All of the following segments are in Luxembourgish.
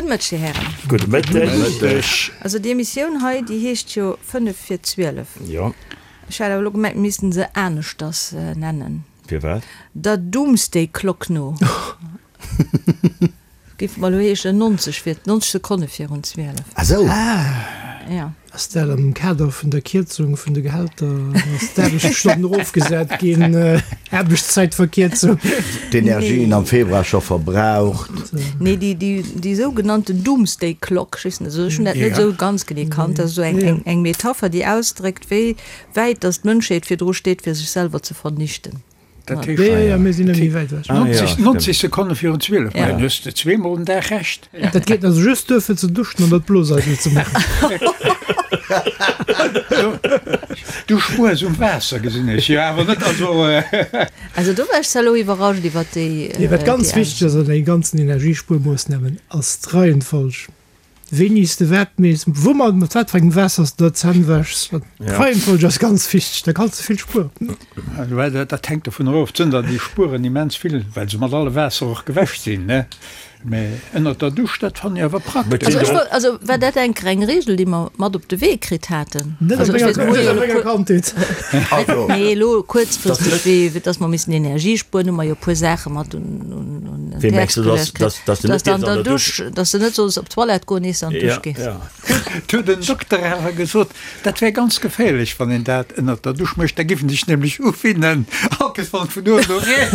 Gudde Mëtteg, Dir Hären. Gudde Mëtteg. Also déi Emissioun hei, déi heescht jo 5 vir 12. Jo. Ech hat awer elo gemengt, mir missten se aneschters nennen. Firwat? Der Doomsday Clock no. Géif mer elo heeschen 90 vir, 90 Sekonne virun 12. Ah sou. Ja. Ass dat am Kader vun der Kierzung vun de Gehälter, ass d'Aarbechtsstonnen erofgesat ginn, Aarbechtszäitverkierzung? D'Energien am Februar scho verbraucht. Nee, déi, déi, déi sougenannten Doomsday Clock, ech weess net, also ech hunn dat net esou ganz genee kannt, dat ass esou eng, eng, eng Metapher, déi ausdréckt, wéi wäit datt d'Mënschheet virdru steet, fir sech selwer ze vernichten. Dat heescht, Ja, ja, mir sinn net méi wäit ewech. 90, 90 Sekonne virun 12, ma dann hues de zweemol den Dag Recht. Dat geet also just duer fir ze duschen an dat Bloseidel ze maachen. Du spuers um Waasser, gesinn ech, jo awer net, also. Also do war ech zwar elo iwwerrascht iwwert déi. Nee, wat ganz wichteg ass an deene ganzen Energiespuermoossnamen, ass d'Reihenfolg. Wéini s de wat mees, woumat, mat wat fir engem Waasser s de der d'Zänn wäschs, d'Reihenfolg ass ganz wichteg, da kanns de vill spueren. Dat hänkt dovunner of, d'sënn der, déi spueren immens vill, well se mat alle Waasser och gewäsch sinn, ne? Mä ënnert der Dusch, dat fannen ech awer praktesch. Also ech wollt, also war dat eng eng Regel, déi mer mat op de Wee kritt haten? Net op menger Kandheet. Nee, elo kuerzfristeg, wéi dass mer missen Energie spueren, hu mer jo e puer Saache mat un Wéi mengs du, dass, dass, dass du net an der Dusch, dass du net solls op d'Toilette goen, iers du an d'Dusch gees? Et huet en Dokter awer gesot, dat wär ganz geféierlech, wann een dat ënnert der Dusch mécht, da géif en sech nämlech uwinnen, all Kees wann et vun uewen no reent.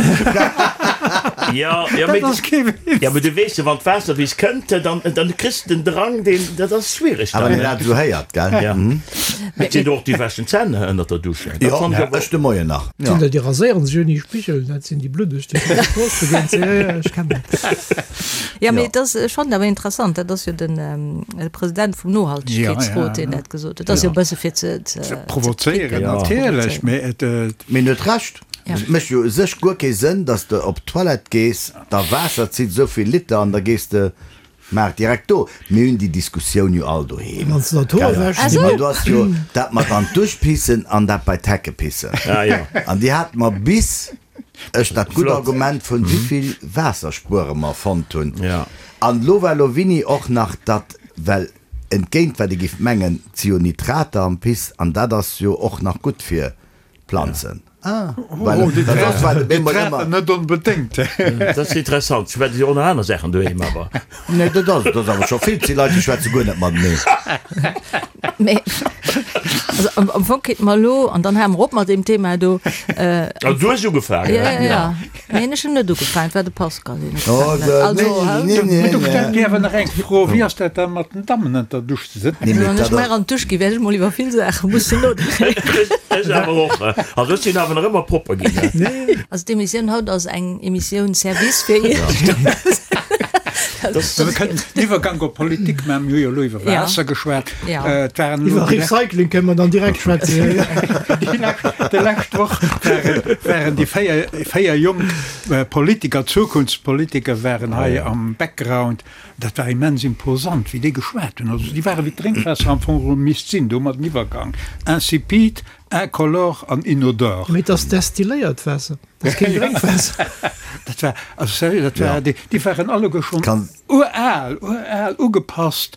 Ja, ja, Dat ass kee Witz. Ja, mee du weess jo, wann d'Waasser bis kënnt, dann, dann kriss de den Drang, deen, dat ass schwiereg dann. Awer wann een dat esou héiert, gell? Ja. Mee et sinn och déi wäschen d'Zänn ënnert der Dusch. Dat Jo, fannen ech awer ech de Moien nach. Ja. Sinn der, déi raséieren sech ouni Spigel, dat sinn déi bluddeg, déi op der Strooss begéint sinn. Ja, ja, ech kennen dat. Ja, mee et ass, ech fannen awer interessant, dat ass jo den President vum Nohaltegkeetsrot, deen dat gesot huet. Dat ass jo e bësse fir ze, ze, Ze provozéieren, natierlech, mee et. Mee en huet Recht. Et mécht jo u sech guer kee Sënn, datt s de op d'Toilette gees, der Waasser zitt esou vill Liter an da gees de Maach direkt do. Mir hunn déi Diskussioun jo all doheem. Wann s de der d'Hoer wäschs, déi Mä do ass jo dat mat an d'Dusch pissen an dat bei d'Hecke pissen. An déi hate mer bis ech dat gutt Argument vun wéivill Waasser spuere mer fonnt hunn. An elo war elo Winni och nach datt, well entgéint wat ee giff mengen, 't si jo Nitrater am Piss an dat ass jo och nach gutt fir d'Planzen. Ah, well dat ass war de Bemol ëmmer. Net onbedéngt. Dat ass interessant. Ech schwätze jo och nach aner Saachen doheem, awer. Nee, dat ass, dat ass awer scho vill. Et si Leit, déi schwätze guer net mateneen. Mee, also am, am Fong kéinte mer elo, an dann hale mer op mat deem Thema do. Also du hues ugefaangen. Ja, ja, ja. Neen, ech hunn net ugefaangen, et war de Pascal, deen ugefaangen huet. Also, hä? Mee du stellt mir awer nach eng Fro, Wéi ass dat da mat den Dammen ënner der Dusch? Also wann ech mar an d'Dusch ginn, wäert ech mol iwwer vill Saache mussen nodenken. Ech awer och. Also ech sinn awer nach ëmmer propper ginn. Also d'Emissioun haut ass eng Emissioun Service fir Iech. Mir kënnen den Iwwergank op Politik maachen. Mir hu jo elo iwwer Waasser geschwat. Et waren elo Iwwer Recycling kënne mer dann direkt schwätzen. Déi lescht Woch waren déi 4 jonk Politiker, Zukunftspolitiker waren hei am Background. Dat war immens imposant, wéi déi geschwat hunn. Also déi ware wéi d'Drénkwaasser am Fong geholl misst sinn. Do hu mer den Iwwergang, insipide, incolore an inodore. Mee et ass destilléiert Waasser, dat ass keen Drénkwaasser. Dat war, also sérieux, dat war, déi, déi waren alleguer schonn ural, ural, ugepasst,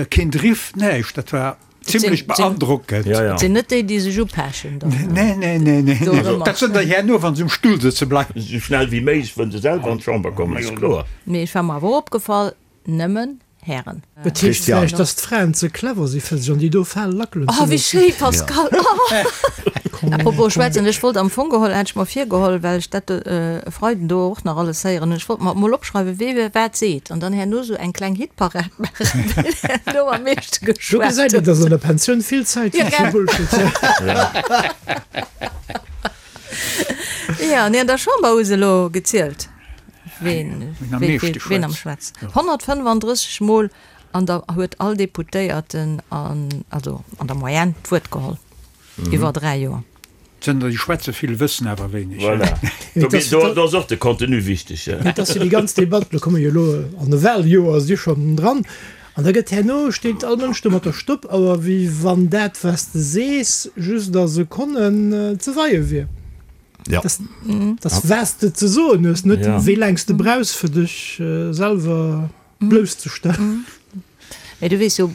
keen Driff, näischt. Dat war. Zimlech beandrockend. Ja, ja. Et sinn net déi, déi sech upechen dann. Nee, nee, nee, nee. Do nee. Dat sënn der herno, wann se um Stull sëtze bleiwen. Esou schnell wéi méiglech wëllen se selwer an d'Chamber kommen, ass kloer. Mee ech war mer awer opgefall, nëmmen Hären. Et heescht vläicht, dass d'Fraen ze clever si fir sech an déi do Fal lackelen ze Oh, wéi loossen. schéi, Pascal! Oh. Apropos schwätzen, ech wollt am Fong geholl, hat ech mer virgeholl, well ech dat e Freiden do och nach alles héieren hunn, ech wollt mer emol opschreiwen, wee wat seet an dann herno esou eng kleng Hitparad maachen, ween herno am meeschte Do geschwat gesäit een, huet. dass an der Pensioun vill Zäit Ja, fir gell? Bullshit. Ja, nee, an der Chamber hu se elo gezielt, ween, Ween am wee, meeschte ween am schwätzt. schwätzt. 135 Mol an der huet all Deputéierten an, also an der Moyenne d'Wuert geholl. Iwwer 3 Joer. Zënter déi schwätze vill, wëssen awer wéineg. Voilà. Do, do, do ass och de Contenu wichteg. Et ass jo déi ganz Debatt, lo komme jo elo an e Wahljoer, si schonn dran, an da gëtt herno, steet all Mënsch do mat der Stoppauer, wéi wann dat, wat s de sees, just a Sekonnen ze weie wier. Ja. Dass, dass wat s de ze soen hues, net wéi laang s de brauchs, fir dech selwer. Blousszestellen. Mee du weess jo,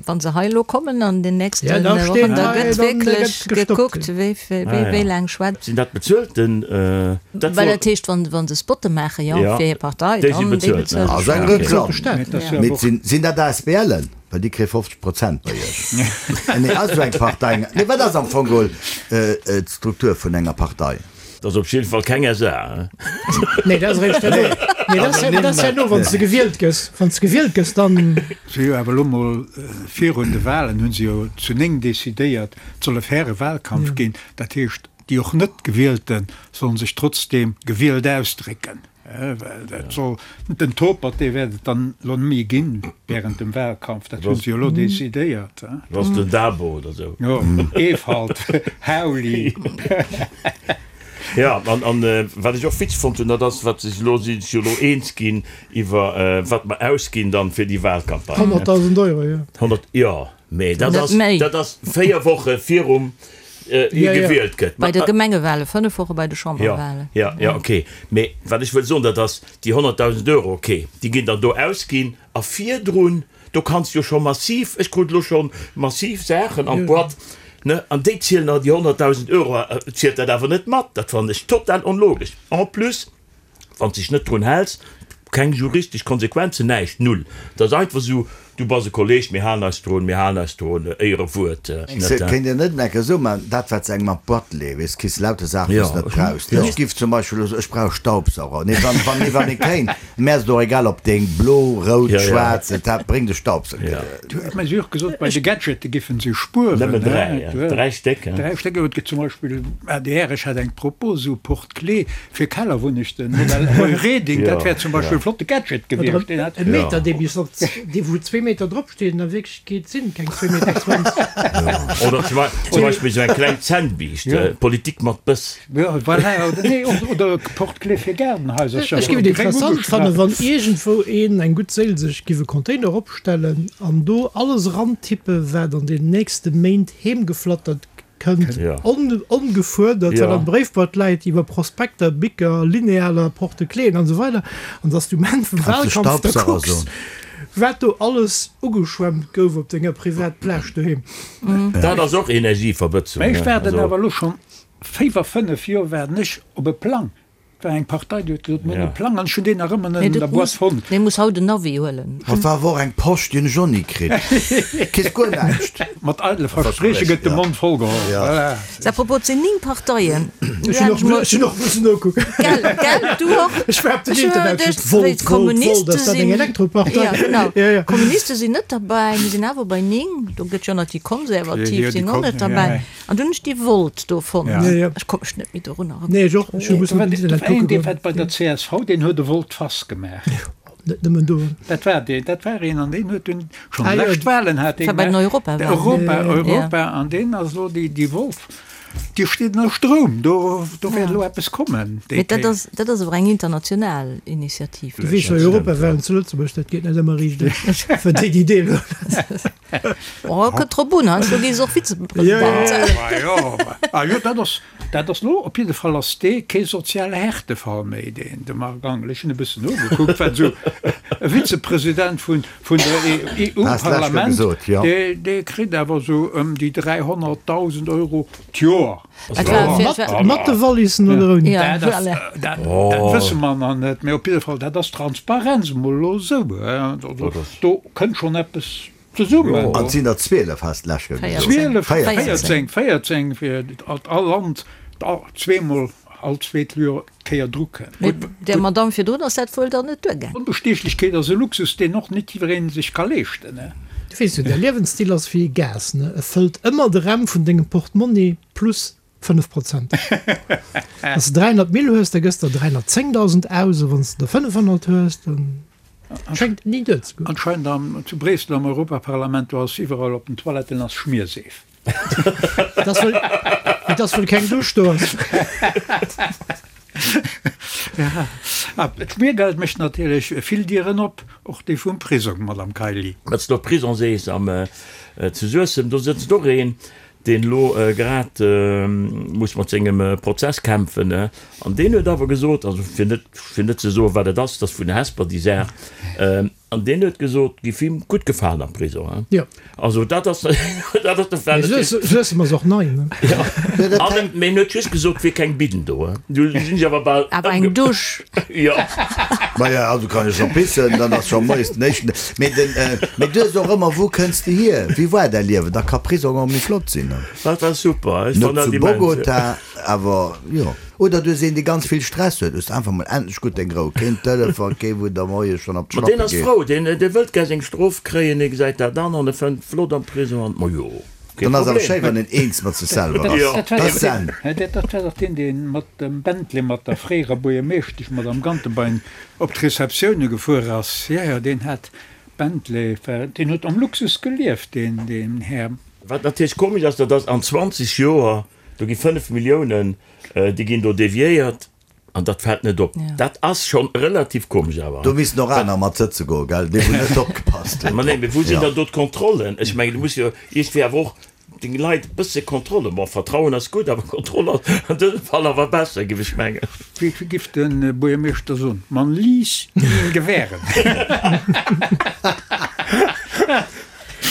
wa se hei elo kommen an den nächste Wochen, da gëtt wierklech gekuckt, wéi laang schwätzt. Sinn dat bezuelten? Well dat heescht, wa se Spotte maache jo fir hir Partei, dann déi bezuelt. Ass eng Reklamm. Mee sinn dat ASBLen? Well déi kréie 50 Prozent bei Iech. Nee, ass esou eng Partei. Nee, wat ass am Fong geholl d'Struktur vun enger Partei? Dat ass op jidde Fall keng SA. Nee, dat ass eréischt herno. Nee, dat ass, dat ass herno, wann s de gewielt gëss. Wann s de gewielt gëss, dann. Si hu jo awer elo mol virun de Wahlen hu se jo zu 9 decidéiert, et soll e faire Wahlkampf ginn. Dat heescht, déi och net Gewielte sollen sech trotzdeem gewielt ausdrécken. Well dat soll, den Topert, dee wäert et dann elo net méi ginn während dem Wahlkampf. Dat hu se jo elo decidéiert. Dat ass den Dabo oder sou. Jo, Ewald, Hauli. Jo, an, an wat ech och witzeg fonnt hunn, dat ass, wat sech elo, si sech jo elo eens ginn iwwer wat mer ausginn dann fir déi Wahlcampagne. 100.000 Euro, jo. 100, jo. Mee dat ass, dat ass 4 Woche virum hie gewielt gëtt. Bei de Gemengewale, 5 Woche bei de Chamberwalen. Jo, jo, ok. Mee wat ech wëll soen, dat ass déi 100.000 Euro, ok, déi ginn dann do ausginn a virdrun, do kanns de jo scho massiv, ech krut elo scho massiv Saachen an d'Boîte, ne, an déi zielen, déi 100.000 Euro zielt dat awer net mat. Dat fannen ech total onlogesch. En plus, Wann s dech net drun häls, keng juristesch Konsequenzen, näischt, null. Et ass einfach esou, du bass e Kolleg, mir halen eis drun, mir halen eis drun, Éierewuert. Kéint een net enke esou maachen, dat wat se engem an d'Boîte leeën, weess, kriss lauter Saachen, déi s net brauchs. Ech giff zum Beispill elo soen, ech brauch e Staubsauger. Nee, wann, wann, nee, wann ee kéint, mär ass et och egal, ob deen blo, rout, schwaarz, et hat, bréngt e Staubsauger. Du huet mer jo och gesot, bei de Gadgete giffen se spueren. Nëmmen 3, 3 Stéck. 3 Stéck, et gëtt zum Beispill, adr, ech hat eng Propos, esou Porte-clés fir Kellerwunnechten, Modell Roy Reding, dat wär zum Beispill e flotte Gadget gewiescht. Deen hat. E Meter, dee bis op, dee wou zwee Meter drop steet, an a Wierklechkeet sinn et keng zwee Meter 20. Oder zum Beispill esou eng kleng Zännbiischt, Politik mat Bëss. Jo, voilà, oder nee, oder Porte-clés fir Gaardenhaisercher. Ech géif et interessant fannen, wann iergendwou een, eng gutt Séil, sech giff e Container opstellen an do alles erantippen, wat an den nächste Méint heemgeflattert kënnt, ongefuerdert, wat am Bréifboîte läit, iwwer Prospekter, Bicker, Linealer, Porte-cléen an esou weider, an dass du um Enn vum Wahlkampf da kucks, wat do alles ugeschwemmt gouf op denger Privatplage doheem. Dat ass och Energieverbëtzung. Mä ech waarden awer elo schonn 5 Joer waarden ech op e Plang. Et war eng Partei, déi huet gesot, mir hunn e Plang, an ech hunn deen nach ëmmer net an der Boîte fonnt. Mee muss haut en Navi huelen. Et war awer och eng Posch, déi hunn ech och ni kritt. Kriss guer näischt. Mat eidele Versprieche gëtt de Mond voll geholl. Voilà. À propos, et sinn 9 Parteien. Ech hunn och, ech hunn och mussen nokucken. Gell, gell, du och? Ech war op den Internet, ech huet Volt, Volt, Volt, ass dat eng Elektropartei? Ja, genau. D'Kommuniste sinn net derbäi, mir sinn awer bei 9. Do gëtt jo nach déi Konservativ sinn och net derbäi. An dunn hunn ech déi Volt do fonnt. Ech konnt mech net méi dorun erënneren. Nee, ech och. Ech hu mussen op den Internet kucke goen. Dee war bei der csv, deen huet e Volte-face gemaach. Net nëmmen do. Dat war deen, dat war een, an deen huet dunn schonn lescht Wahlen hat dee gemaach. War bei den Europawahlen. Europa, Europa, an deen ass elo déi, déi Volt, déi steet ënner Stroum. Do, do wäert elo eppes kommen déi Mee dat ass, dat ass awer eng international Initiativ. Du weess jo, Europawahlen zu Lëtzebuerg, dat geet net ëmmer riicht aus, fir déi, déi deelhuelen. Oh, kënnt drop un, heiansdo gi se och Vizepresident. Ah jo, dat ass, dat ass lo, op jidde Fall ass dee kee soziale Härtefall méi, deen, de Marc Angel. Ech hunn e bëssen nogekuckt, wat esou e Vizepresident vun, vun der EU-Parlament, dee, dee kritt awer esou ëm déi 300.000 Euro d'Joer. Mat de Wallissen oder ouni? Dat ass, dat, dat wësse mer nach net, mee op jidde Fall, dat ass Transparenz emol elo esou. Do kënnt schonn eppes zesummen. An et sinn der 12, has de lech gesot. 12, 14, 14, fir datt all Land zweemol, all zweet Joer Kéier dru kënnt. Mee där Madamm virdrun ass dat wuel dann net duergaangen. Onbestiechlechkeet ass e Luxus, deen och net jiddweree sech ka leeschten. Du weess jo, däi Liewensstil ass wéi e Gas, ne? E fëllt ëmmer de Räm vun dengem Portmonni plus 5 Prozent. Wann s de 300 Mille hues, da gëss der 310.000 aus, a wann s de der 500 hues, da schéngt et ni duerzegoen. Anscheinend am, zu Bréissel am Europaparlament, do ass iwwerall op den Toiletten ass Schmierseef. Et ass wëll, et ass wëll keng Dusch do ass. Ja, d'Schmiergeld mécht natierlech vill Dieren op, och déi vum Prisong, Madame Kaili. Wat s de op Prison sees, am zu Suessem, do sëtzt och een, deen elo grad muss mat sengem Prozess kämpfen, an deen huet awer gesot, also fir net, fir net ze soen, wat et ass, dat ass vun Hesper déi Saach. An deen huet gesot, giff him gutt gefalen am Prisong, hein. Jo. Also dat ass, dat ass de Fall. Mee Suessem ass och nei, ne? Jo. An en, mee en huet just gesot, wier keng Bidden do, hein. Du sinn ech awer bal. Awer eng Dusch. Jo. Maja, also kann ech scho pissen, dann ass scho moies den éischten. Mee den, mee du hues och ëmmer, wou kënns de hier, wéi war däi Liewen? Da ka Prisong och méi flott sinn, ne? Dat war super, ech Net fann dat zu immens. Bogota, Awer jo. Oder du hues een dee ganz vill Stress huet, hues de einfach mol endlech gutt deng Rou, keen Telefon, kee wou der moies schonn op Ma deen d'Schlappe ass geet. frou, deen dee wëllt gär seng Strof kréien, dee gesäit dat an an e fënnt flott am Prison an, ma jo, kee Dann ass awer Problem. schéi wann een eens mat sech selwer ass. Jo. Dat Dat ass Zen. Dat war dach deen, dee mat dem Bentley mat der fréierer Buergermeeschtesch, Madame Gantenbein, op d'Receptioune gefuer ass. Jo, jo, deen hat Bentley, deen huet am Luxus gelieft, deen, deen Här. Wat natierlech komesch ass, dat ass an 20 Joer, Do gi 5 Milliounen, déi ginn do deviéiert an dat fält net op. Dat ass schonn relativ komesch awer. Do missten och aner mat sëtze goen, gell, déi wou net opgepasst hunn. Ma nee, mee wou sinn dann do d'Kontrollen? Ech mengen, du muss jo iergendwéi awer och deng Leit e bësse Kontrolle, bon, Vertrauen ass gutt, awer Kontroll ass an dësem Fall awer besser, géif ech mengen. Wéi giff de Buergermeeschter soen, Man liess ihn gewähren.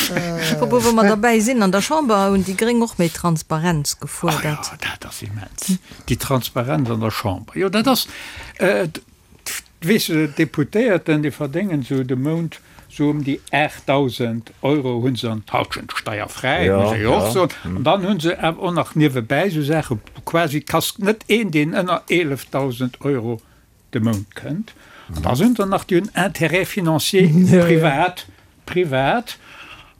Apropos, wou mer derbäi sinn, an der Chamber hunn déi Gréng och méi Transparenz gefuerdert. Oh jo, dat ass immens, déi Transparenz an der Chamber. Jo, dat ass, weess de, d'Deputéierten, déi verdéngen esou de Mount esou ëm déi 8.000 Euro hu se an d'Halschent steierfräi, muss ee jo och soen. An dann hu se awer och nach niewebäi esou Saachen, quasi, et ass net een, deen ënner 11.000 Euro de Mount kënnt. An da sinn der nach, déi hunn Intérêts financiers privat, privat.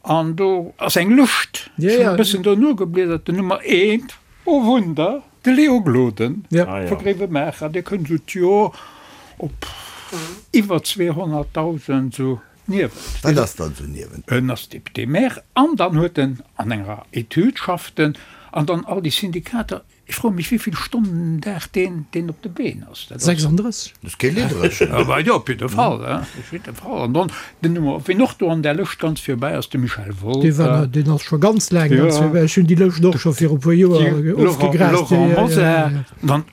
An do ass eng Lëscht, ech hunn e bëssen do nogebliedert, den Nummer eent, oh Wunder, de Léo Gloden vu Gréiwemaacher, dee kënnt esou d'Joer op iwwer 200.000 esou niewent. Wat ass dann esou niewent? En ass Député-maire an dann huet en an enger Etüd schafft en an dann all déi Syndikater. Ech froe mech wéivill Stonnen den Dag deen deen op de Been ass. Dat ass 36. Dat ass kee Lidderechen. Awer jo, op jidde Fall, hein, op jidde Fall. An dann den Nummer, wien och do an där Lëscht ganz virbäi ass, de Michel Wolter. Dee war, deen ass scho ganz laang ganz virbäi. Ech hunn déi Lëscht och scho viru puer Joer ofgegrast. Laurent Mosar. Dann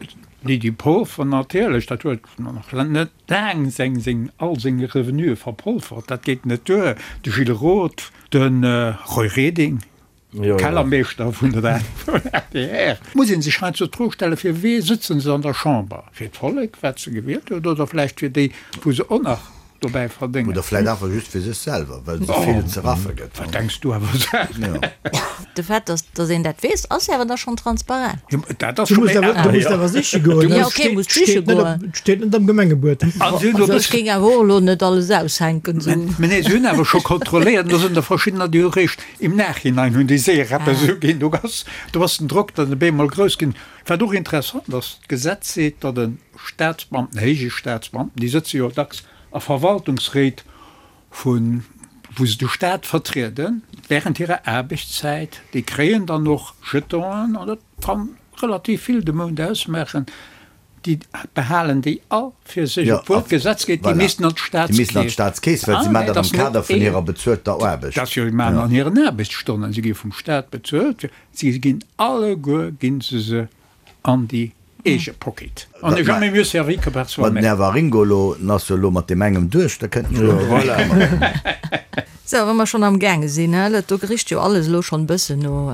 d'Lydie Polfer natierlech, dat huet nach net laang seng, seng, all seng Revenue verpolfert, dat geet net duer. De Gilles Roth, de Roy Reding. Kellermeeschter vun der adr. Muss ee sech heiansdo d'Fro stellen, fir wee sëtzen se an der Chamber? Fir d'Vollek, wat se gewielt huet, oder vläicht fir déi, wou se och nach dobäi verdéngen? Oder vläicht einfach just fir sech selwer, well et esou vill ze raffe gëtt. Wat denks du awer Saachen? De Fait, dass dass een dat weess, ass jo awer da schonn transparent. Jo, dat ass scho méi aner. Du musst awer siche goen. Jo, okay, musst siche goen. Et steet net am Gemengebuet. Ech géing awer och elo net alles aushänken. Mä nee, se hunn awer scho kontrolléiert, do sinn der verschiddener, déi hu réischt Im Nachhinein hunn déi séier eppes uginn. Do ass, do ass den Drock dann op eemol grouss ginn. Wat och interessant ass, d'Gesetz seet, datt e Staatsbeamten, héije Staatsbeamten, déi sëtze jo dacks a Verwaltungsréit vu wou se de Staat vertrieden, während hirer Aarbechtszäit, déi kréien dann och Jetonen an dat kann relativ vill de Mount ausmaachen. Déi behalen déi all fir sech, obwuel d'Gesetz geet, déi missten an d'Staatskeess. Déi missten an d'Staatskeess, well si maachen dat am Kader vun hirer bezuelter Aarbecht. Dat jo, si maachen an hiren Aarbechtsstonnen, si gi vum Staat bezuelt, si ginn alleguer gi se se an déi eege Pocket. On n'est jamais mieux servi que par soi-même. Ma den Här Waringo elo, en ass jo elo mat deem engem duerch, da kënnt en jo elo Voilà. Sou, wa mer schonn am gaange sinn, he, dat do richt jo alles elo schonn e bëssen no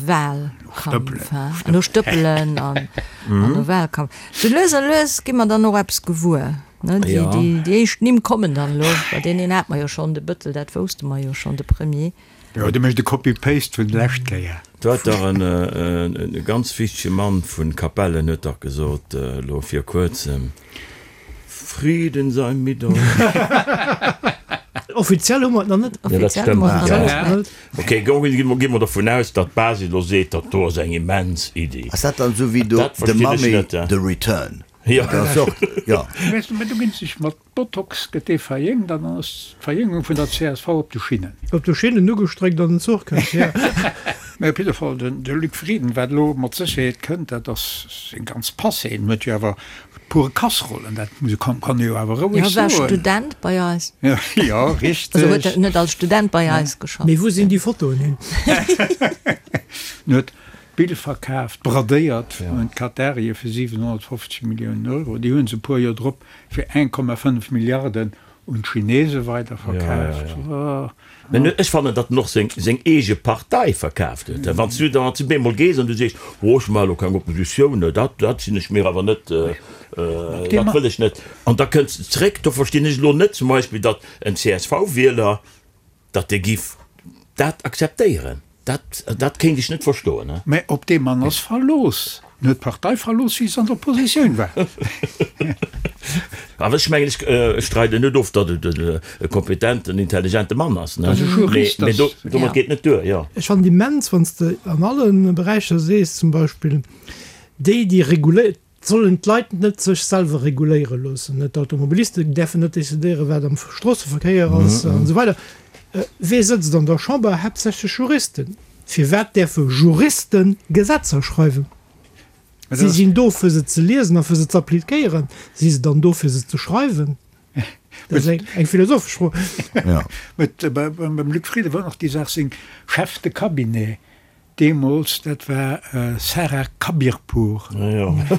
Wahlkampf, he, no Stëppelen an no Wahlkampf. Sou lues a lues gi mer dann och eppes gewuer, ne, déi, déi, déi éischt Nimm kommen dann elo, bei deen een hate mer jo schonn, de Bëttel, dat wousste mer jo schonn, de Premier. Jo, dee mécht e Copy-Paste vun d'lescht Kéier. Do hat dach en ganz wichtege Mann vun Capellen huet dach gesot elo vir kuerzem, Frieden sei mit euch. Offiziell hu mer et nach net. Jo, dat stëmmt. Ok, gi mer dovun aus, datt d'Basis elo seet, dat do ass eng immens Iddi. Ass dat dann esou wéi do Dat The verstinn ech Mummy, net. The Return? Jo. Dat ass och, jo. Weess de, mä do ginn sech mat Botox gëtt dee verjéngt an dann ass d'Verjéngung vun der csv op de Schinnen. Op de Schinnen ugestréckt an den Zuch kënnt, jo. Mä op jidde Fall, den de Luc Frieden, wat elo mat Sécherheet kënnt, dat ass seng ganz Passé. En huet jo awer pure Kasserollen, dat muss e, kann kann e jo awer roueg Jo, war soen. Student bei eis. Jo, richteg. Also huet net als Student bei eis geschafft. Mee wou sinn déi Fotoen hin? En huet Bill verkaaft, bradéiert un d'Katarië fir 750 Milliounen Euro. Déi hu se e puer Joer drop fir 1,5 Milliarden. Un d'Chinese weiderverkaaft. Mä ech fannen, datt en och seng eege Partei verkaaft huet. Wann s du dann zu bemol gees an du sees, oh ech maache elo keng Oppositioun, dat dat sinn ech mir awer net, dat wëll ech net, an da kënns de zréck, do verstinn ech elo net zum Beispill, datt en CSV-Wieler, datt dee giff dat akzeptéieren. Dat, dat kéint ech net verstoen. Mä op dee Mann ass Verlooss. En huet d'Partei verlooss, wéi se an der Oppositioun war. Awer ech mengen, ech streiden net of, datt et e kompetenten, intelligente Mann ass. Ass e Jurist. Mee domat geet net duer, jo. Ech fannen et immens, wann s de an alle Beräicher sees, zum Beispill déi, déi reguléiert, Sollen d'Leit net sech selwer reguléiere loossen? D'Automobilisten däerfen net decidéieren, wat am Stroosseverkéier ass an esou weider. Wee sëtzt an der Chamber? Haaptsächlech Juristen. Firwat däerfe Juriste Gesetzer schreiwen? Si sinn do, fir se ze liesen a fir se ze appliquéieren. Si se dann do, fir se ze schreiwen? Dat ass eng philosophesch Fro. Beim Luc Frieden war och déi Saach, seng Chef de cabinet Deemools, dat war Sarah Khabirpour.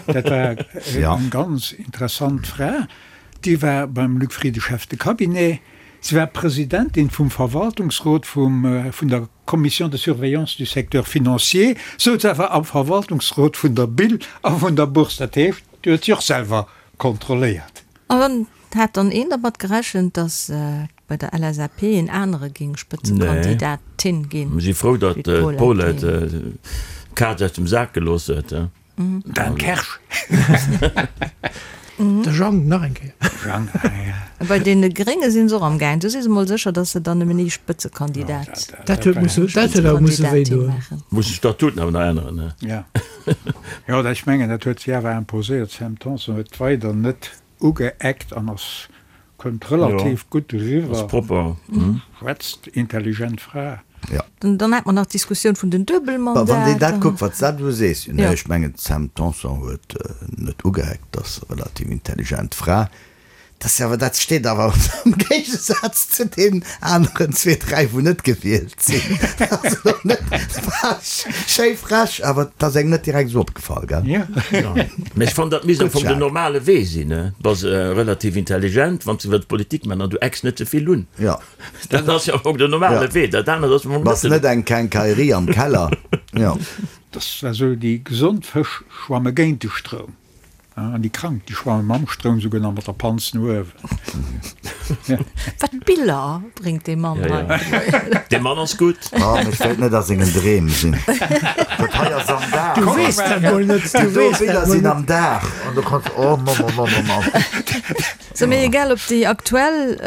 Dat war eng ganz interessant Fra. Déi war beim Luc Frieden Chef de Cabinet. Si war Presidentin vum Verwaltungsrot vum vun der Commission de surveillance du secteur financier, souz awer am Verwaltungsrot vun der BIL a vun der Bourse. Dat heescht, déi huet si och selwer kontrolléiert. Hat dann een dermat gerechent, datt bei der LSAP een anere géing Spëtzekandidatin ginn? Mir si frou, datt d'Paulette d'Kaz aus dem Sak gelooss huet. Dan Kersch. De Jang nach eng Kéier. Jang, ah ja. Bei deene Grénge sinn se och am gaang. Do si se mol sécher, datt se dann nëmmen ee Spëtzekandidat. Dat huet musse, dat huet awer musse wéi doen. Muss de Statuten awer nach änneren, ne? Ja. Jo, ech mengen, dat huet si awer imposéiert. D'Sam Tanson huet weider net Ugeeckt an ass kënnt relativ gutt eriwwer. Ass propper. Schwätzt, intelligent Fra. Jo. Dann hat mer nach d'Diskussioun vun den Duebelmandater. Wann een dat kuckt, wat s de elo sees, nee, ech mengen d'Sam Tanson huet net ugeeckt, ass relativ intelligent Fra. Dat ass awer, dat steet awer am Géigesaz zu deenen aneren zwee, dräi wou net gewielt sinn. Dat ass elo net schéi frech, awer et ass engem net direkt esou opgefall, gell? Jo. Mä ech fannen, dat misst am Fong den normale Wee sinn. Du bass relativ intelligent, wann s de wëlls Politik maachen an du ecks net ze vill un. Jo. Dat ass jo am Fong den normale Wee. Dat anert ass am Fong net. Bass net eng Quincaillerie am Keller. Jo. Dat war esou, déi gesond Fësch schwamme géint de Stroum. An déi Krank, déi schwamme mam Stroum souguer nach mat der Panz no uewen. Wat Biller bréngt dee Mann hei! Dee Mann ass gutt. Oh, mee ech wéilt net a sengen Dreem sinn. Dat hei ass am Dag. Du weess dat mol net. Du weess dat mol net. Déi do Biller sinn am Dag. An du kanns, oh Mann, oh Mann, oh Mann. Sou, mee egal ob déi aktuell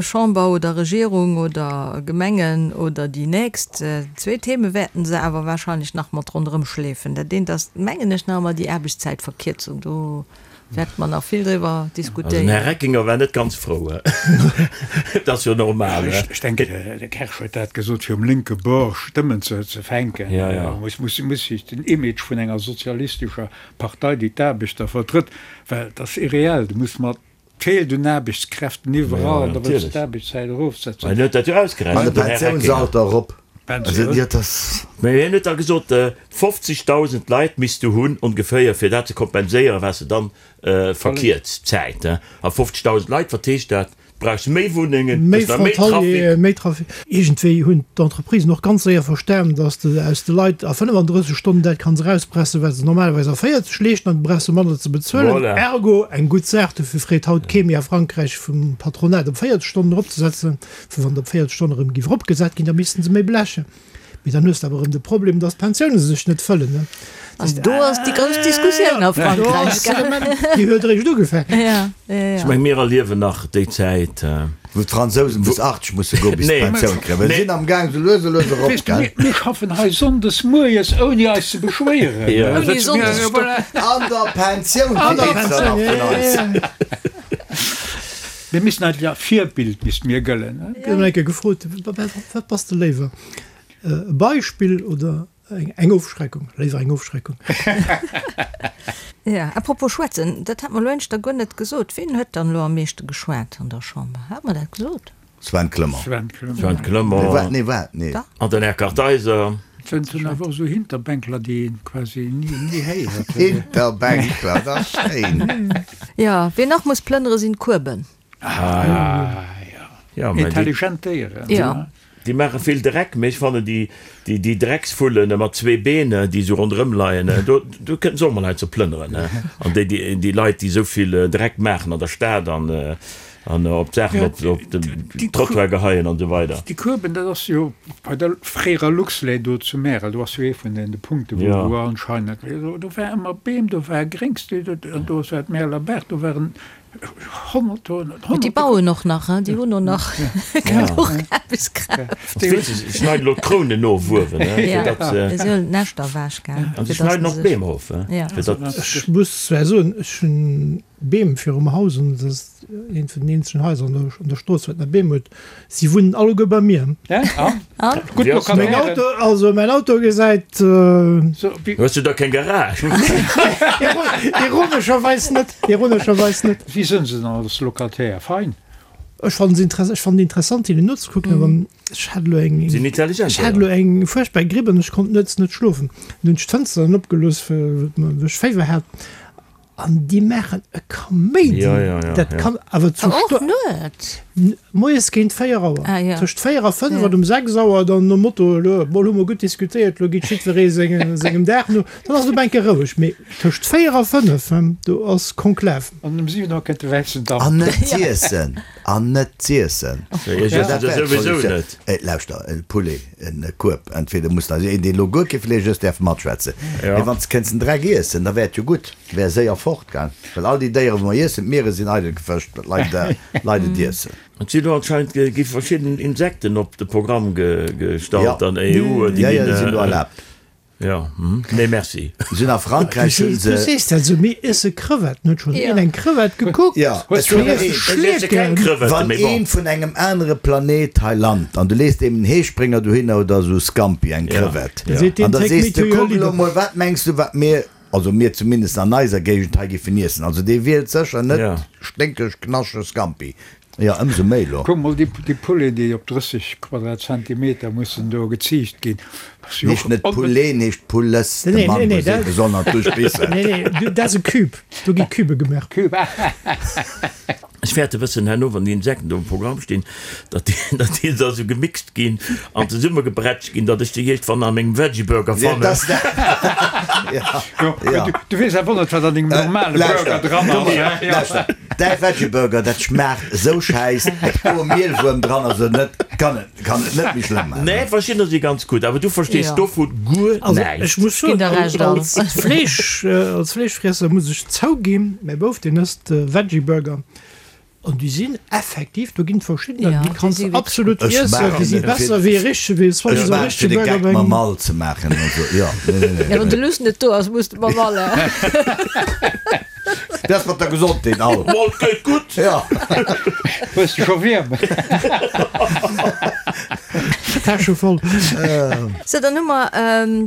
Chamber oder Regierung oder Gemengen oder déi nächst, zwee Theme wäerten se awer wahrscheinlech nach mat ronderëm schleefen. Dat eent ass, mengen ech, nach ëmmer déi Aarbechtszäitverkierzung. Do wäerte mer nach vill driwwer diskutéieren. Also den Här Reckinger war net ganz frou. Dat ass jo normal. Ech denken, de Kersch huet dat gesot, fir um lénke Bord Stëmmen ze fänken. Muss sech den Image vun enger sozialistescher Partei, déi d'Aarbechter vertrëtt, well et ass irreell, du muss mat, et feelt un Aarbechtskräften iwwerall an da wëlls de d'Aarbechtszäit erofsetzen. Mä hien huet dat jo An de ausgerechent, den Här Reckinger. Pensiounsalter erop. Also, jo, dat. Mä hien huet da gesot, 50.000 Leit misst du hunn ongeféier, fir dat ze kompenséieren, wat se dann verkierzt, d'Zäit. A 50.000 Leit, wat heescht dat? Brauchs méi Wunnengen, méi Frontalieren, méi Trafic. Iergendwéi hunn d'Entreprisen och ganz séier verstan, dass de aus de Leit a 35 Stonnen dat kanns erauspressen, wat se normalerweis a 40 leeschten, an du brauchs se manner ze bezuelen. Voilà. Ergo eng gutt Saach. Dofir freet haut kee méi a Frankräich vum Patronat op 40 Stonnen eropzesetzen, well wann et op 40 Stonnen erëm géif eropgesat ginn, da missten se méi blechen. Mee dann hues de awer erëm de Problem, dass d'Pensioune sech net fëllen, ne? An do ass déi grouss Diskussioun a Frankräich, gell? Déi huet eréischt ugefaangen. Ja, ja, ja. Ech meng, mir erliewen nach déi Zäit. Wou d'Fransousen bis 80 musse goen, bis se d'Pensioun kréien. Well se sinn am Gaang, sou lues a lues erop, Weess de, gell? mir schaffen hei sonndes mueres, ouni eis ze beschwéieren. Ouni Sonndesstopp. An der Pensioun fir eenzelner vun eis. Mir missten eigentlech als Virbild misste mir gëllen. Ech hunn eng Kéier gefrot, Wat bass de léiwer, e Beispill oder eng Ofschreckung? Léiwer eng Ofschreckung. Jo, à propos schwätzen, dat hat mer elo éischter guer net gesot. Ween huet dann elo am meeschte geschwat an der Chamber? Hat mer dat gesot? Sven Clement. Sven Clement. Sven Clement. Nee, wat? Nee, wat? Nee. Dach. An den Här Kartheiser. Et sinn awer och esou Hinterbänkler, déi een quasi ni, ni héiert. Hinterbänkler, dat ass schéin. Jo, ween nach muss plënnere sinn d'Kueben. Ah jo. Intelligent Déieren. Jo. Déi maache vill Dreck, mee ech fannen déi, déi Drecksvullen mat zwee Been, déi esou ronderëm leien, do, do kënnten se och mol hei ze plënneren. An déi, déi Leit, déi esou vill Dreck maachen an der Stad an, an op d'Saachen op, op den Trottoir geheien an esou weider. Déi Kueben, dat ass jo bei der fréierer Luxlait do zu Märel, do ass jo ee vun den Punkte wou, wou anscheinend, do war ëmmer Beem, do war Gréngs, an do war d'Märeler Baach, do waren Déi bauen och nach, hein, déi hunn och nach genuch Aarbechtskraaft. Se schneiden elo d'Krounen of uewen, fir datt se. Se huelen d'Näschter ewech, gell. An se schneiden och d'Beem of, fir datt. Ech muss zwar soen, ech hunn Beem virum Haus an dat ass eent vun den eenzegen Haiser an der Strooss, wat nach Beem huet. Si wunnen alleguer bei mir. Mäin Auto, also mäin Auto gesäit. Hues du da keng Garage? Ironescherweis net, ironescherweis net. Wéi sënn se dann als Locataire? Fein. Ech fannen se interess, ech fannen interessant hinnen nozekucken, awer ech hat elo eng, Sinn intelligent, ech hat elo eng fuerchtbar Gripp an ech konnt nuets net schlofen. Dann hunn ech d'Fënster dann opgelooss, well ech Féiwer hat. An déi maachen e Kaméidi, Ja, ja, ja, dat ja. kann awer zu Och Sto nuets? moies géint 4 Auer, Ah, ja. tëscht 4 a 5 Ja. an um 6 Auer dann nom Motto, elo mol hu mer gutt diskutéiert, elo geet jiddweree senge sengem Dag no, dann ass et op eng Kéier roueg. Mee tëscht 4 a 5, do ass Konklav. An um 7 Auer kënnt de wäissen Damp. An net z'iessen, an net z'iessen. Ja, ech iessen se souwisou net. Lauschter, e Poulet, en Kueb, entweder muss, also een deen elo guer kee Fleesch ësst däerf matschwätzen, mee wann s de kéints den Dreck iessen, da wär et jo gutt, wär séier fort, gell, well all déi Déieren wou mer iessen, d'Miere sinn eidel gefëscht, well d'Leit Leit et iessen. Et sinn elo anscheinend gi verschidden Insekten op de Programm gestallt an EU, déi ginn, jo, jo, déi sinn elo erlaabt. Jo, nee merci. Sinn a Frankräich hunn se. Du sees dat esou, mir iesse Crevetten. Huet schonn een eng Crevette gekuckt? Jo, Mir iesse Schleeken. Wann een vun engem anere Planet hei lant an du lees deem en Heesprénger dohinner oder esou Scampi, eng Crevette, an da sees de, kuck elo mol, wat mengs du wat mir, also mir zumindest an eiser Géigend hei giffen iessen? Also dee wielt sécher net sténkeg, knaschteg Scampi. Jo, ëmsou méi elo. Kuck mol, déi Pouleten, déi op 30 Quadratzentimeter mussen do geziicht ginn. Heescht net Poulet, heescht Poules. De Mann muss ee besonner duerchbissen. Nee, nee, dat ass e Cube. Do gi Cubë gemaach. Cube, Ech fäerte bëssen herno, wann déi Insekten do um Programm stinn, datt déi, datt déi da sou gemixt ginn an zesummegebrätscht ginn, datt ech déi iergendwann a mengem Veggie-Burger fannen. Du weess awer net, wat an dengem normale Burger dran ass. Lauschter, däi Veggie-Burger, dat schmaacht esou schäiss, ob do e Mielwuerm dran ass oder net, kann et, kann et net méi schlëmm maachen. Nee, verschiddener si ganz gutt, awer du verstees dovu guer Also näischt. ech muss soen, als Fleesch, als Fleeschfriesser muss ech zouginn, mäi Bouf, deen ësst Veggie-Burger an déi sinn effektiv, do ginn et verschiddener, déi kanns de absolut iessen, déi si besser wéi e richtege, wéi e richtege Burger. Ech maache fir de Geck mam Mall ze maachen, also jo, nee, nee, nee. Ja, wann de Luss net do ass, muss de mam Mall. Dat ass mat der Gesondheet all. Mol, 't geet gutt. Ja. Hues de scho Wierm? Täsche voll. Sou, dann hu mer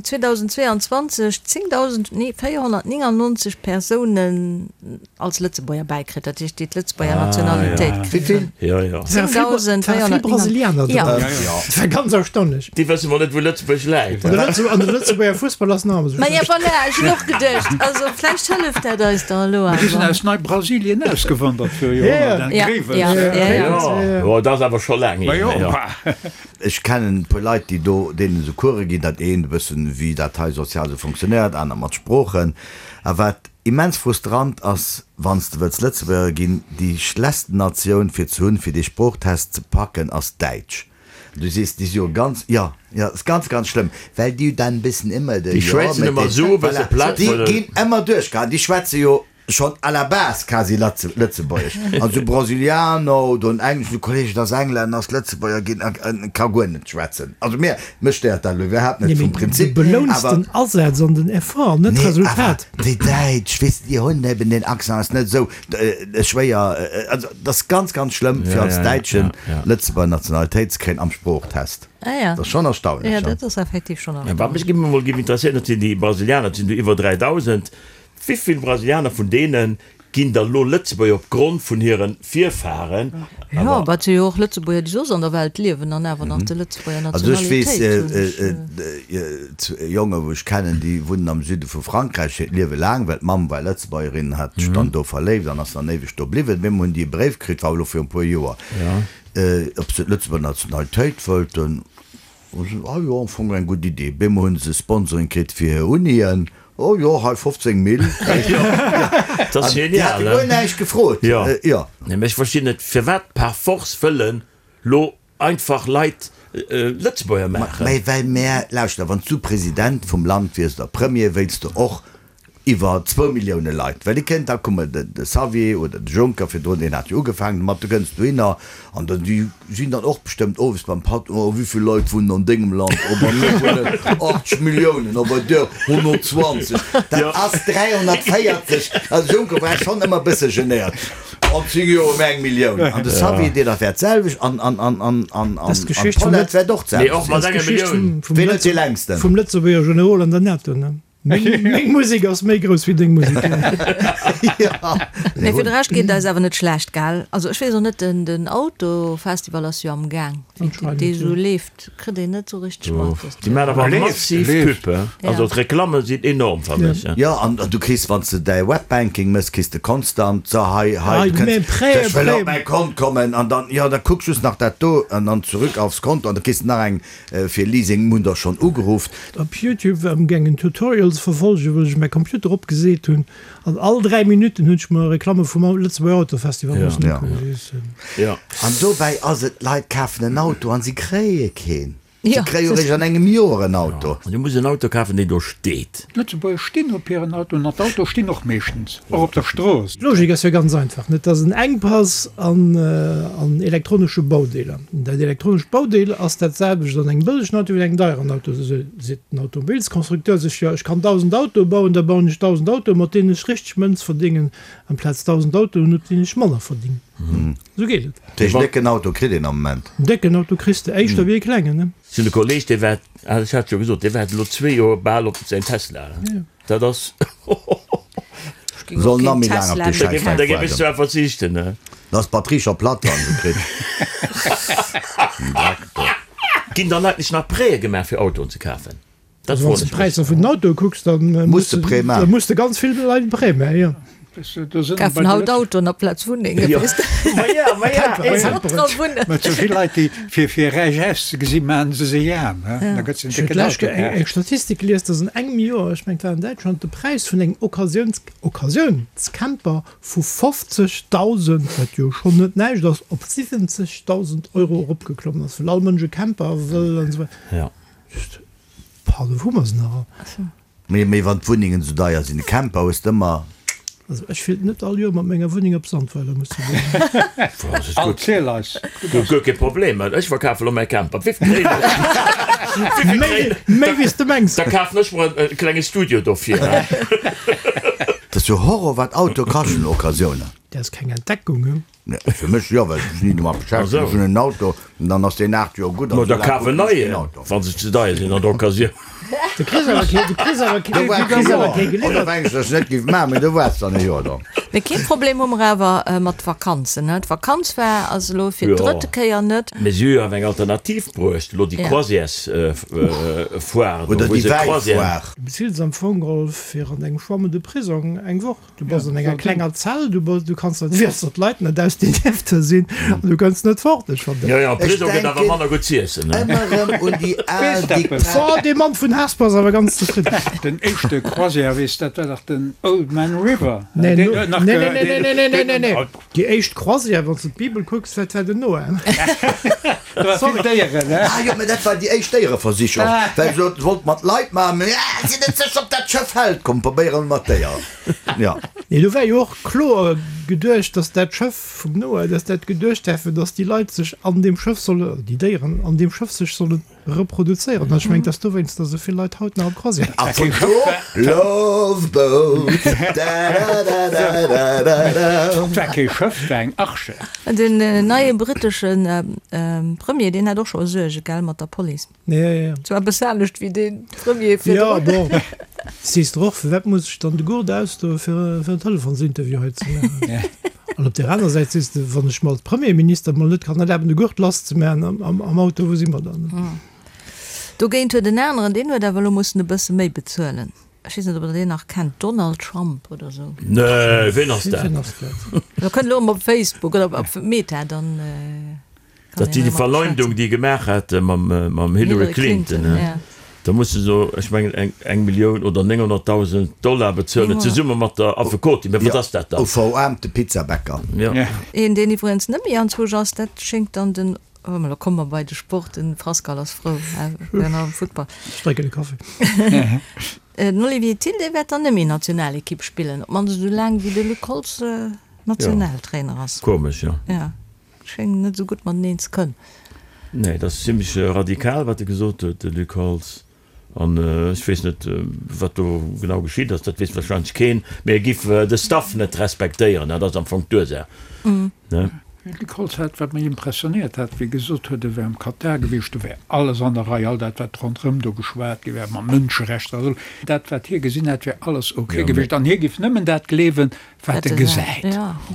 2022 10.000, nee 499 Persounen als Lëtzebuerger bäikritt, dat heescht déi d'Lëtzebuerger Nationalitéit kritt hunn. Wéi vill? Jo, jo. 10.499. Vill Brasilianer dran. Ja. Dat war ganz erstaunlech. Déi wësse mol net wou Lëtzebuerg läit. An de Lëtzebuerger Fussball ass nach ëmmer sou Ma ja schlecht. voilà, ech hunn och geduecht, also vläicht hëlleft dat eis da elo Déi sinn awer. aus Neibrasilien ausgewandert fir Joerhonnert, Ja, Grevels. ja, ja, ja. Jo, dat ass awer scho laang Ma hier. jo, Jo. Ech kennen e puer Leit, déi do deenen esou Course ginn, dat eent e bëssen wéi dat hei sozial esou funktionéiert, aner mat Sproochen. A wat immens frustrant ass, wann s de wëlls Lëtzebuerger ginn, déi schlechtsten Natioun fir ze hunn, fir dee Sproochtest ze packen, ass Däitsch. Du sees, déi si jo ganz, jo, jo, ass ganz, ganz schlëmm, well déi dann bëssen ëmmer de, Déi jo, schwätzen mit ëmmer den, esou e bësse voilà, platt, déi well. ginn ëmmer duerchgehaen, déi schwätze jo schonn à la base quasi Latze, Lëtzebuergesch. An esou Brasilianer oder en engleschen Kolleg, et ass Englänner, ass Lëtzebuerger ginn a ka guer net schwätzen. Also mir, mech stéiert dat elo iwwerhaapt net Nee, vum mee du Prinzip, belouns awer. den Asaz an den Effort, net Nee, awer d'Resultat. déi Däitsch, weess de, déi hunn eben deen Accent, ass net esou. Schwéier, also dat ass ganz ganz schlëmm fir als Däitschen Lëtzebuerger Nationalitéit ze kréien am Sproochtest. Dat ass schonn erstaunlech. Jo, dat ass effektiv schonn erstaunlech. Wat mech emol géif interesséieren, dat sinn déi Brasilianer, dat sinn do iwwer 3.000. Wéi vill Brasilianer vun deene. Ginn da lo Lëtzebuerger op Grond vun hiren Virfahren. Jo, awer et si jo och Lëtzebuerger, déi soss an der Welt liewen an awer nach de Lëtzebuerger Also ech weess Nationalitéit hunn. Jongen, wou ech kennen, déi wunnen am Süde vu Frankräich hiert Liewe laang, well d'Mamm war Lëtzebuergerin, hat sech dann do verléift an ass dann éiweg do bliwwen. Op eemol hunn déi e Bréif kritt, war elo viru e puer Joer, ob se d'Lëtzebuerger Nationalitéit wëllten. Ah jo, am Fong eng gutt Idee. Bemol hunn se Sponsoring kritt fir hir Unien. Oh jo, hei 15 Mille. Dat ass genial, ne? Déi hate guer näischt gefrot. Jo. Jo. Nee, mä ech verstinn net, firwat par force wëllen lo einfach Leit Lëtzebuerger maachen. Mä well mär, lauschter, wann s du President vum Land wiers oder Premier, wéilts de och iwwer zwou Millioune Leit, well déi kënnt, da komme de Xavier oder de Juncker virdrun, deen hat jo ugefaangen domat, du kënns dohinner an dann, déi sinn dann och bestëmmt owes beim Patt, oh wéivill Leit wunnen an dengem Land, oh bei mir wunnen 80 Milliounen, oh bei dir 120, dat ass 340, also de Juncker war schonn ëmmer e bësse genéiert, an 10 Joer hu mir eng Millioun, an de Xavier deen dat wäert d'selwecht an an an an an an d'Paulette wäert och d'selwecht sinn. Ween huet dee längsten? Vum Lëtzebuerger Generol an der NATO, ne? Meng Musek ass méi grouss wéi deng Musek. Mee fir de Rescht geet et eis awer net schlecht, gell? Also ech weess och net, den Autofestival ass jo am Gaang, wéi dee sou leeft, kritt een net sou richteg mat. Déi maachen awer massiv Pub, he? Also d'Reklamme sinn enorm, fannen ech. Jo, an du kriss, wann s de däi Webbanking mëss, kriss de konstant, so hei, hei, du kënns, ech wëll op mäi Kont kommen, an dann, jo, da kuck just nach dat do, an dann zurück aufs Konto, an da kriss de nach eng Fir Leasing hunn der schonn ugerufft. Op Youtube war amgaangen Tutorials verfolgen, wou ech mäi Computer opgeseet hunn an all 3 Minutten hunn ech mer Reklamme vum Lëtzebuerger Autofestival mussen ukucken. An dobäi ass et, d'Leit kafen en Auto an si kréie keen. Si kréie jo eréischt an engem Joer en Auto. An du muss en Auto kafen, deen do steet. D'Lëtzebuerger stinn op hiren Autoen an d'Autoe stinn och meeschtens och op der Strooss. D'Logik ass jo ganz einfach, net dass en Enkpass an an elektronesche Baudeeler. Dat elektronescht Baudeel ass dat selwecht an engem bëllegen Auto wéi an engem deieren Auto. Esou seet den Automobilsconstructeur sech, jo ech kann 1.000 Autoe bauen, da bauen ech 1.000 Autoe mat deenen ech richteg Mënz verdéngen, amplaz 1.000 Autoen mat deenen ech manner verdéngen. Esou geet et. Dat heescht, en décken Auto kritt een am Moment? En décken Auto kriss de éischter wéi e klengen, ne? Ech hunn e Kolleg, dee waart, ah ech hat jo gesot, dee waart elo zwee Joer bal op säin Tesla. Dat ass, Soll nach méi laang op dee Schäiss Da géif ech zwar verzichten, ne? Da ass d'Batterie scho platt, wann se kritt. Dreck do. Ginn dann eigentlech nach Prêtë gemaach fir Autoen ze kafen? Dat froen ech mech. Wann s de d'Präisser vun den Autoe kucks, da Muss de Prêt maachen. Da muss de ganz vill Leit e Prêt maachen, jo. Kafen haut Autoen aplaz Wunnengen, weess de. Ma ja, ma ja, eben. Dra wunnen. Mä sou vill Leit, déi fir fir räich auszegesi maachen se se aarm, he? Da gëtt se en Ech hunn décken d'lescht Auto Kéier eng kaaft. Statistik gelies, dass an engem Joer, ech mengen et war an Däitschland, de Präis vun engem Occasiouns Occasiounscamper vu 50.000, wat jo schonn net näischt ass, op 70.000 Euro eropgeklommen ass, well all Mënsch e Camper wëll an esou weider. Ja. Just, pardon, wou hu mer se nach all? Mee, mee wann d'Wunnengen esou deier sinn, e Camper hues de ëmmer. Also ech wéilt net all Joer mat menger Wunneng op Sandweiler musse goen. Erziel eis. Guer kee Problem, ech verkafe lo mäi Camper. Wéivill kréien ech? Wéivill kréien ech? Méi wéi s de mengs. Da kafen ech mer e klenge Studio dofir. Dat ass jo Horror wat Autoe kaschten, Occasiounen. Dat ass keng Entdeckung, he? Fir mech jo, well ech mech ni domat beschäftegen. Ech hunn en Auto an dann ass deen 8 Joer gutt an Ma da esou laang kaf en kucken ech keen neien, Auto. wa se ze deier sinn an der Occasioun. Du kriss awer kee, du kriss awer kee, Do du waarts kriss e awer Joer. kee Oder geliwwert. mengs du, dass ech net géif maachen, mee do waarts dann e Joer drop. Mee kee Problem hu mer awer mat Vakanzen, ne? D'Vakanz war also elo fir Jo. d'drëtte Kéier net. Mee si hu jo awer eng Alternativ bruecht, elo déi Ja. Croisièresfoire do, Oder wou déi se Croisièren. Wäifoire. Du bezills am Fong geholl fir an engem Chambre de prisong eng Woch. Du bass an enger klenger Zell, du bass, du kanns net, wéi datt d'Leit net aus den Niefte sinn an du kënns net fort. Ech fannen Jo, jo, am Ech Prisong gëtt awer denken manner gutt z'iessen, ne? ëmmer erëm un déi al Diktat. Oh, dee Mann vun Hesper ass awer ganz zefridden. Den éischte Croisière, weess, dat war dach den Old Man River. Nee, Deen no, huet nach nee, ge, nee, nee, deen, nee, nee, nee, deen, nee, nee. Déi éischt Croisière, wann s de d'Bibel kucks, dat war den Noah. Do war vill Déieren, ne? Ah jo, mä dat war déi éischt Déiereversicherung, well se wollt mat Leit maachen, mä ah, sinn net sécher, ob dat Schëff hält, komm probéiere mer mat Déieren. Jo. Nee, do war jo och kloer geduecht, dass dat Schëff vum Noah, dass dat geduecht war, fir dass déi Leit sech an deem Schëff solle, déi Déieren an deem Schëff sech sollen. Reproduzéieren. An ech mengen, et ass dowéinst, datt esou vill Leit haut nach op Croisière A vun do Love Boat, da-da-da-da-da-da. Et war kee Schëff, et war eng Arche. Den neie brittesche Premier, deen hat och scho Suerge, gell, mat der Police. Ja, ja, ja. Zwar e bësse anescht wéi dee Premier Ja, virdrun. bon, sees de och, firwat muss ech dann de Gurt ausdoe fir fir en Telefonsinterview hei ze maachen? An op där aner Säit sees de, wann ech mer als Premierminister mol net kann erlaben, de Gurt lasszemaachen am, am Auto, wou si mer dann? Dogéint huet en aneren, deen huet awer elo mussen e bësse méi bezuelen. Ech weess net, ob Der deen nach kennt, Donald Trump oder esou. Nee, ween ass dat? Ween ass dat? Da kënnt elo emol op Facebook oder op Meta, dann. Dat déi Verleumdung déi e gemaach hat mam Hillary Clinton, da muss se so, ech mengen eng eng Millioun oder 900.000 Dollar bezuelen, zesumme mat der Affekotin. Mä wat ass dat dann? U veraarmte Pizzabäcker. Een deen iwwregens net méi anzwousch ass, dat schéngt dann den, oh mä lo komme mer bei de Sport, den Frascal ass frou, mir nach am Futtball. Ech drénken e Kaffi. Den Olivier Thill, dee wäert dann net méi Nationalekipp spillen, op d'mannst esou laang wéi de Luc Holtz Nationaltrainer ass. Komesch, jo. Schéngen net esou gutt mateneen ze kënnen. Nee, dat ass zimlech radikal, wat e gesot huet, de Luc Holtz. An ech weess net, wat do genau geschitt ass, dat weess warscheinlech keen. Mee e giff de Staff net respektéieren, dat ass am Fong d'Ursaach, ne? De Luc Holtz hat, wat mech impressionéiert hat, wéi e gesot huet, e wär am Katar gewiescht, do wär alles an der Rei, all dat, wat ronderëm do geschwat gi wär, mat Mënscherechter a sou, dat, wat hie gesinn hätt, wär alles ok gewiescht. An hie giff nëmmen dat gleewen, Wat e gesäit,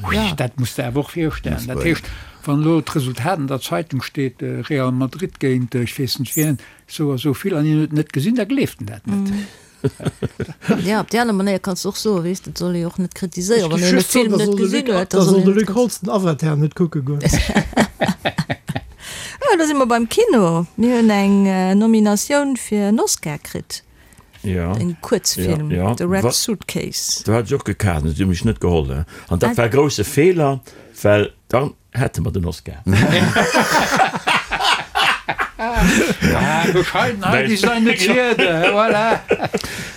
ui, dat muss de awer och virstellen. Dat heescht, wann elo d'Resultat an der Zeitung steet, Real Madrid géint ech weess net wien, esou a sou vill, an hien huet et net gesinn, da gleeft en dat net. Jo, op déi aner Manéier kanns de och soen, weess de, et soll ee jo och net kritiséieren, wann een e Film net gesinn huet. Da soll de Luc Holtz den Avatar net kucke goen. Jo, da si mer beim Kino. Mir hunn eng Nominatioun fir en Oscar kritt. Ja. En Kuerzfilm, ja, ja. The Red Suitcase. Do hat ech och gekaart, an si hu mech net geholl. An dat war e grousse Feeler, well dann hätte mer den Oscar. Bescheidenheit ist eine Zierde, voilà.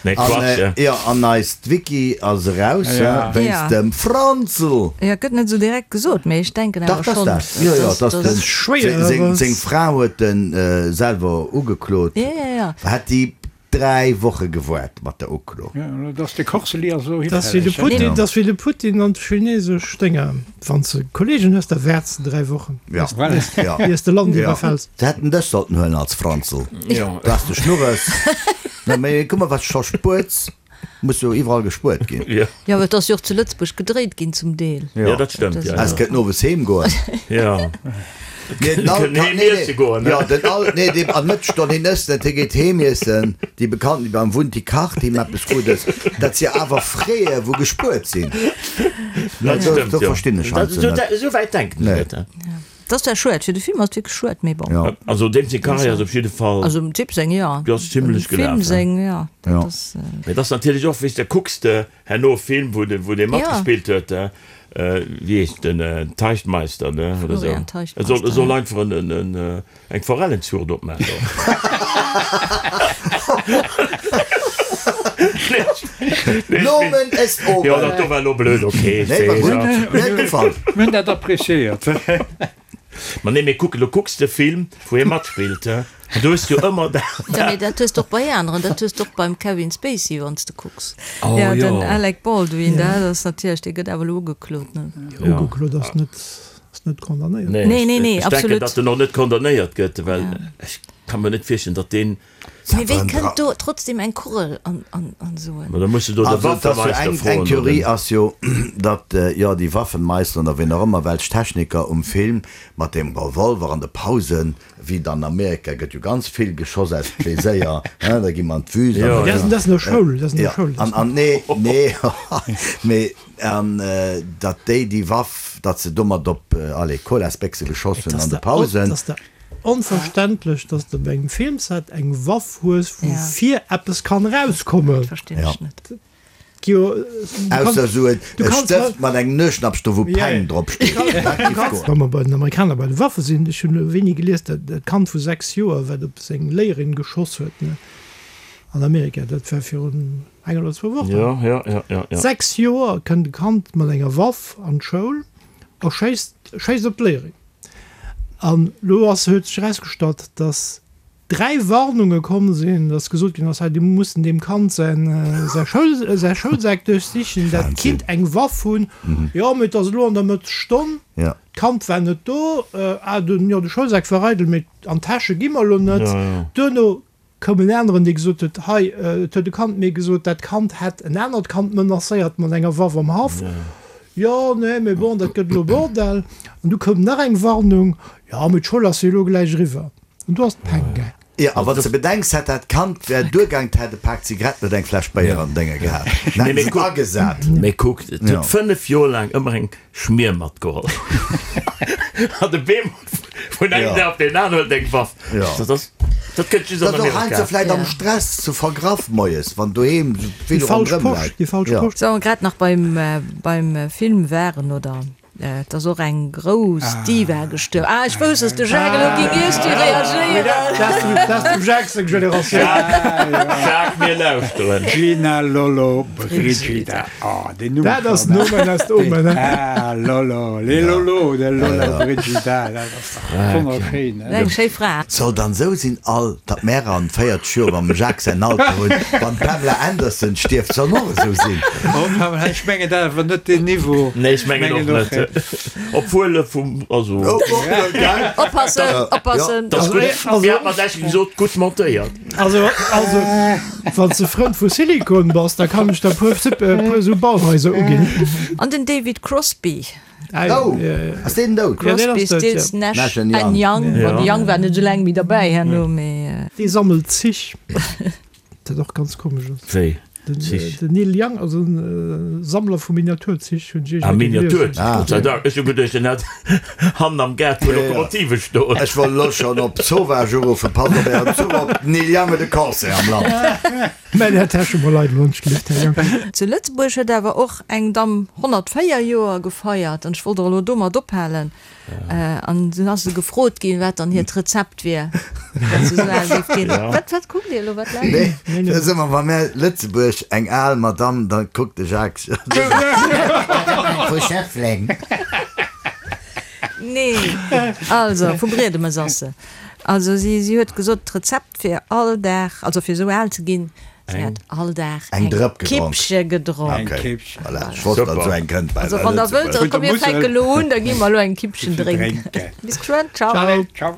Nee, Quatsch. An, jo, an eist Wiki ass eraus, wéinst dem Franzl. Jo, gëtt net esou direkt gesot, mee ech denken awer schonn. Dach, dat ass dat. Jo, jo, dat ass den, seng Fra huet en selwer ugeklot. Jo, jo, jo. Hätt déi 3 Woche gewoart mat der Uklo. Jo, dass de Kochseli ass elo Dat ass wéi de hifälleg. Putin, dat ass wéi de Putin an d'chinesesch Dénger. Wann s de Kollegen hues, da waarts de 3 Wochen, Ja, ja. iers de Land Ja. iwwerfäls. Se hätten dech sollten huelen als Franzl. Ja. Du has de Schnurres. Na, mee kuck mol, wat s scho spuerts. Muss jo iwwerall gespuert ginn. Ja. Jo, et ass jo och zu Lëtzebuerg gedréit ginn zum Deel. Ja, dat stëmmt. Ja, Es kënnt owes heem goen. ja. Nee, den Al Kënnt heem iesse goen, ne? Ja, den Al, nee, dee an Mëttesstonn, hien ësst net, hie geet heem iessen. Déi Bekannten, déi beim Wunti kacht him eppes Guddes. Dat si awer Fräe wou gespuert sinn. Dat Do, stëmmt, do jo. verstinn ech Dat, heiansdo esou, net. esou wäit denken ech Nee. net, he. Dat ass zwar schued, fir de Film ass et wierklech schued, mee bon. Ja. Also deem seng Karriär ass op jidde Fall. Also dem Typ seng, jo. Déi ass zimlech Dem Film gelaf, he. seng, jo. Dat Ja. ass. Mee et ass natierlech och, weess de, kucks de herno e Film, wou de, wou dee matgespillt huet, wéi heescht den, Teichtmeister, ne, oder esou. Florian E soll, e Teichtmeister, soll ja. einfach en, en, en, eng Forellenzuucht opmaachen do. Nomen est omen. Jo, dat do war elo blöd, ok, ech Nee, war weess, gutt. ja. Mir huet gefall. Mir hunn dat appréciéiert. Ma nee, mee kuck, elo kucks de Film, wou hie matspillt, he, an du hues jo ëmmer dat. Ja, mee dat hues de och bei aneren, dat hues de och beim Kevin Spacey, wann s de kucks. Oh, Ja, den jo. Alec Baldwin, dat ass natierlech, dee gëtt awer elo ugeklot, ne? Ja. Ugeklot ass net, ass net condamnéiert. Nee, Nee, nee, nee, ech denken, absolut. datt en och net condamnéiert gëtt, well ech ka mer net virstellen, datt deen. Mee wéi kënnt do trotzdem eng Kugel an esou en. Ma da muss de do de Also, et ass jo Waffemeister eng, eng froen, Theorie oder? ass jo, datt, jo, déi Waffenmeister oder wien och ëmmer, welch Techniker um Film mat deem Revolver an de Pausen, wéi et an Amerika gëtt jo ganz vill geschoss aus Pleséier, hein, da gi mer an d'Wüst an Jo, da ja. Dat ass no Schoul, dat ass no Jo, Schoul. an, an, nee, nee, mee, an datt déi déi Waff, datt se domat op, allez, Colasbéchse geschoss hunn an de Pausen. Et ass der onverständlech, datt s de op engem Filmset eng Waff hues, wou vir eppes kann erauskommen. Dat verstinn ech net. Jo, Ausser esou e Stëft mat engem Nueschnappsch do wou Peng drop steet. Dat giff goen. Wa mer bei den Amerikaner bei de Waffe sinn, ech hunn elo wéini gelies, dat dat Kand vu 6 Joer, wat op seng Léierin geschoss huet, ne, an Amerika, dat war virun enger oder zwou Wochen. Jo, jo, jo, jo, jo. 6 Joer kënnt e Kand mat enger Waff an d'Schoul a schéisst, schéisst op d'Léierin. An elo ass, huet sech erausgestallt, datt. 3 Warnunge komm sinn, dass gesot ginn ass, hei, dir mussen deem Kand säin, säi Schoul, säi Schoulsak duerchsichen, dat kinnt eng Waff hunn. Jo, mee et ass elo an der Mëttesstonn, d'Kand war net do, ah, den, jo, de Schoulsak war eidel, mee an d'Täsche gi mer elo net. Duerno koum en aneren, dee gesot huet, hei, et huet e Kand mir gesot, dat Kand hätt en anert Kand menacéiert mat enger Waff am Haff. Jo, nee, mee bon, dat gëtt elo Bordell. An du koum nach eng Warnung, jo, mee d'Schoul ass jo elo gläich eriwwer. An du ass d'Peng gaang. Jo, a wann s de bedenks, hätt dat Kand, wär duergaang, 't hätt e Pak Zigaretten oder eng Fläsch Béier an Dénge gehat. Dann hätten se et agesat. Mee kuck, et huet 5 Joer laang ëmmer eng Schmier matgeholl. An de Beem vun engem Dag op deen aneren huet eng Waff. Dat ass, dat kënnt just an Dat och Amerika. heiansdo vläit am Stress ze vergraff moies, wann doheem Déi vill falsch ronderëm Posch, läit. déi falsch Posch. Sou, grad nach beim, beim Film waren, oder? Et ass och eng grouss Diva gestuerwen. Ah, ech wousst, dass de Jacques elo géing iergstwéi reagéieren. Dat ass dem Jacques seng Generatioun. Jacques, mir lauschteren. Gina Lollobrigida. Oh, deen Numm Dat ass nomen est omen, he? Ah, Lollo, les Lollo, de Lollobrigida, dat ass dach wonnerschéin, he? Eng schéi Fra. Soll dann sou sinn all, datt mär an 40 Joer mam Jacques säin Alter hunn, wann d'Pamela Anderson stierft, soll och esou sinn. Oh Pamela, ech mengen dat awer net deen Niveau. Nee, ech mengen och net. Obwuel e vum, also. Oppassen, oppassen. Dat ass gutt, mir hat mat Esch gesot, gutt montéiert. Also, also wann s de Frënd vu Silikon bass, da kann ech der puer, puer esou Bauhaiser uginn. An den David Crosby. Oh, ass deen dout? Crosby, Stills, Nash and Young. Bon, de Young war net esou laang méi derbäi herno, mee. Dee sammelt Zich, dat och ganz komesch ass. Wéi? Den Zich? Den Neil Young ass e Sammler vu Miniaturzich, hunn ech Ah, iergendwéi gelies. Miniaturzich, Gott sei Dank. Ech hu geduecht, en hätt hannen am Gaart puer Lokomotive stoen. Ech wollt elo schonn op Sauvage uruffen, Passt op ären Zuch op, den Neil Young huet e Concert am Land. Mä där Täsche mol eidel hunn ech gelift, Här Jang. Zu Lëtzebuerg huet awer och eng Damm 104 Joer gefeiert an ech wollt och elo domat ophalen. An dunn ass se gefrot ginn, wat dann hiert Rezept wier, datt se esou al géif ginn. Wat, wat kuckt Dir elo? Wat laacht Dir? Nee, dat ass ëmmer, wa mär Lëtzebuerg eng al Madamm, da kuckt de Jacques jo vu Schëffleng. Nee, also vu Briedemes ass se. Also si, si huet gesot, d'Rezept Fir all Dag, also fir esou al ze ginn, si hat all Dag eng Kippche gedronk. Eng Kippche. Voilà, ech wosst, datt esou eng kënnt bei Also wann der wëllt, da komm mir fänke lo un, da gi mer elo eng Kippchen drénken. Bis geschwënn, ciao. Ciao.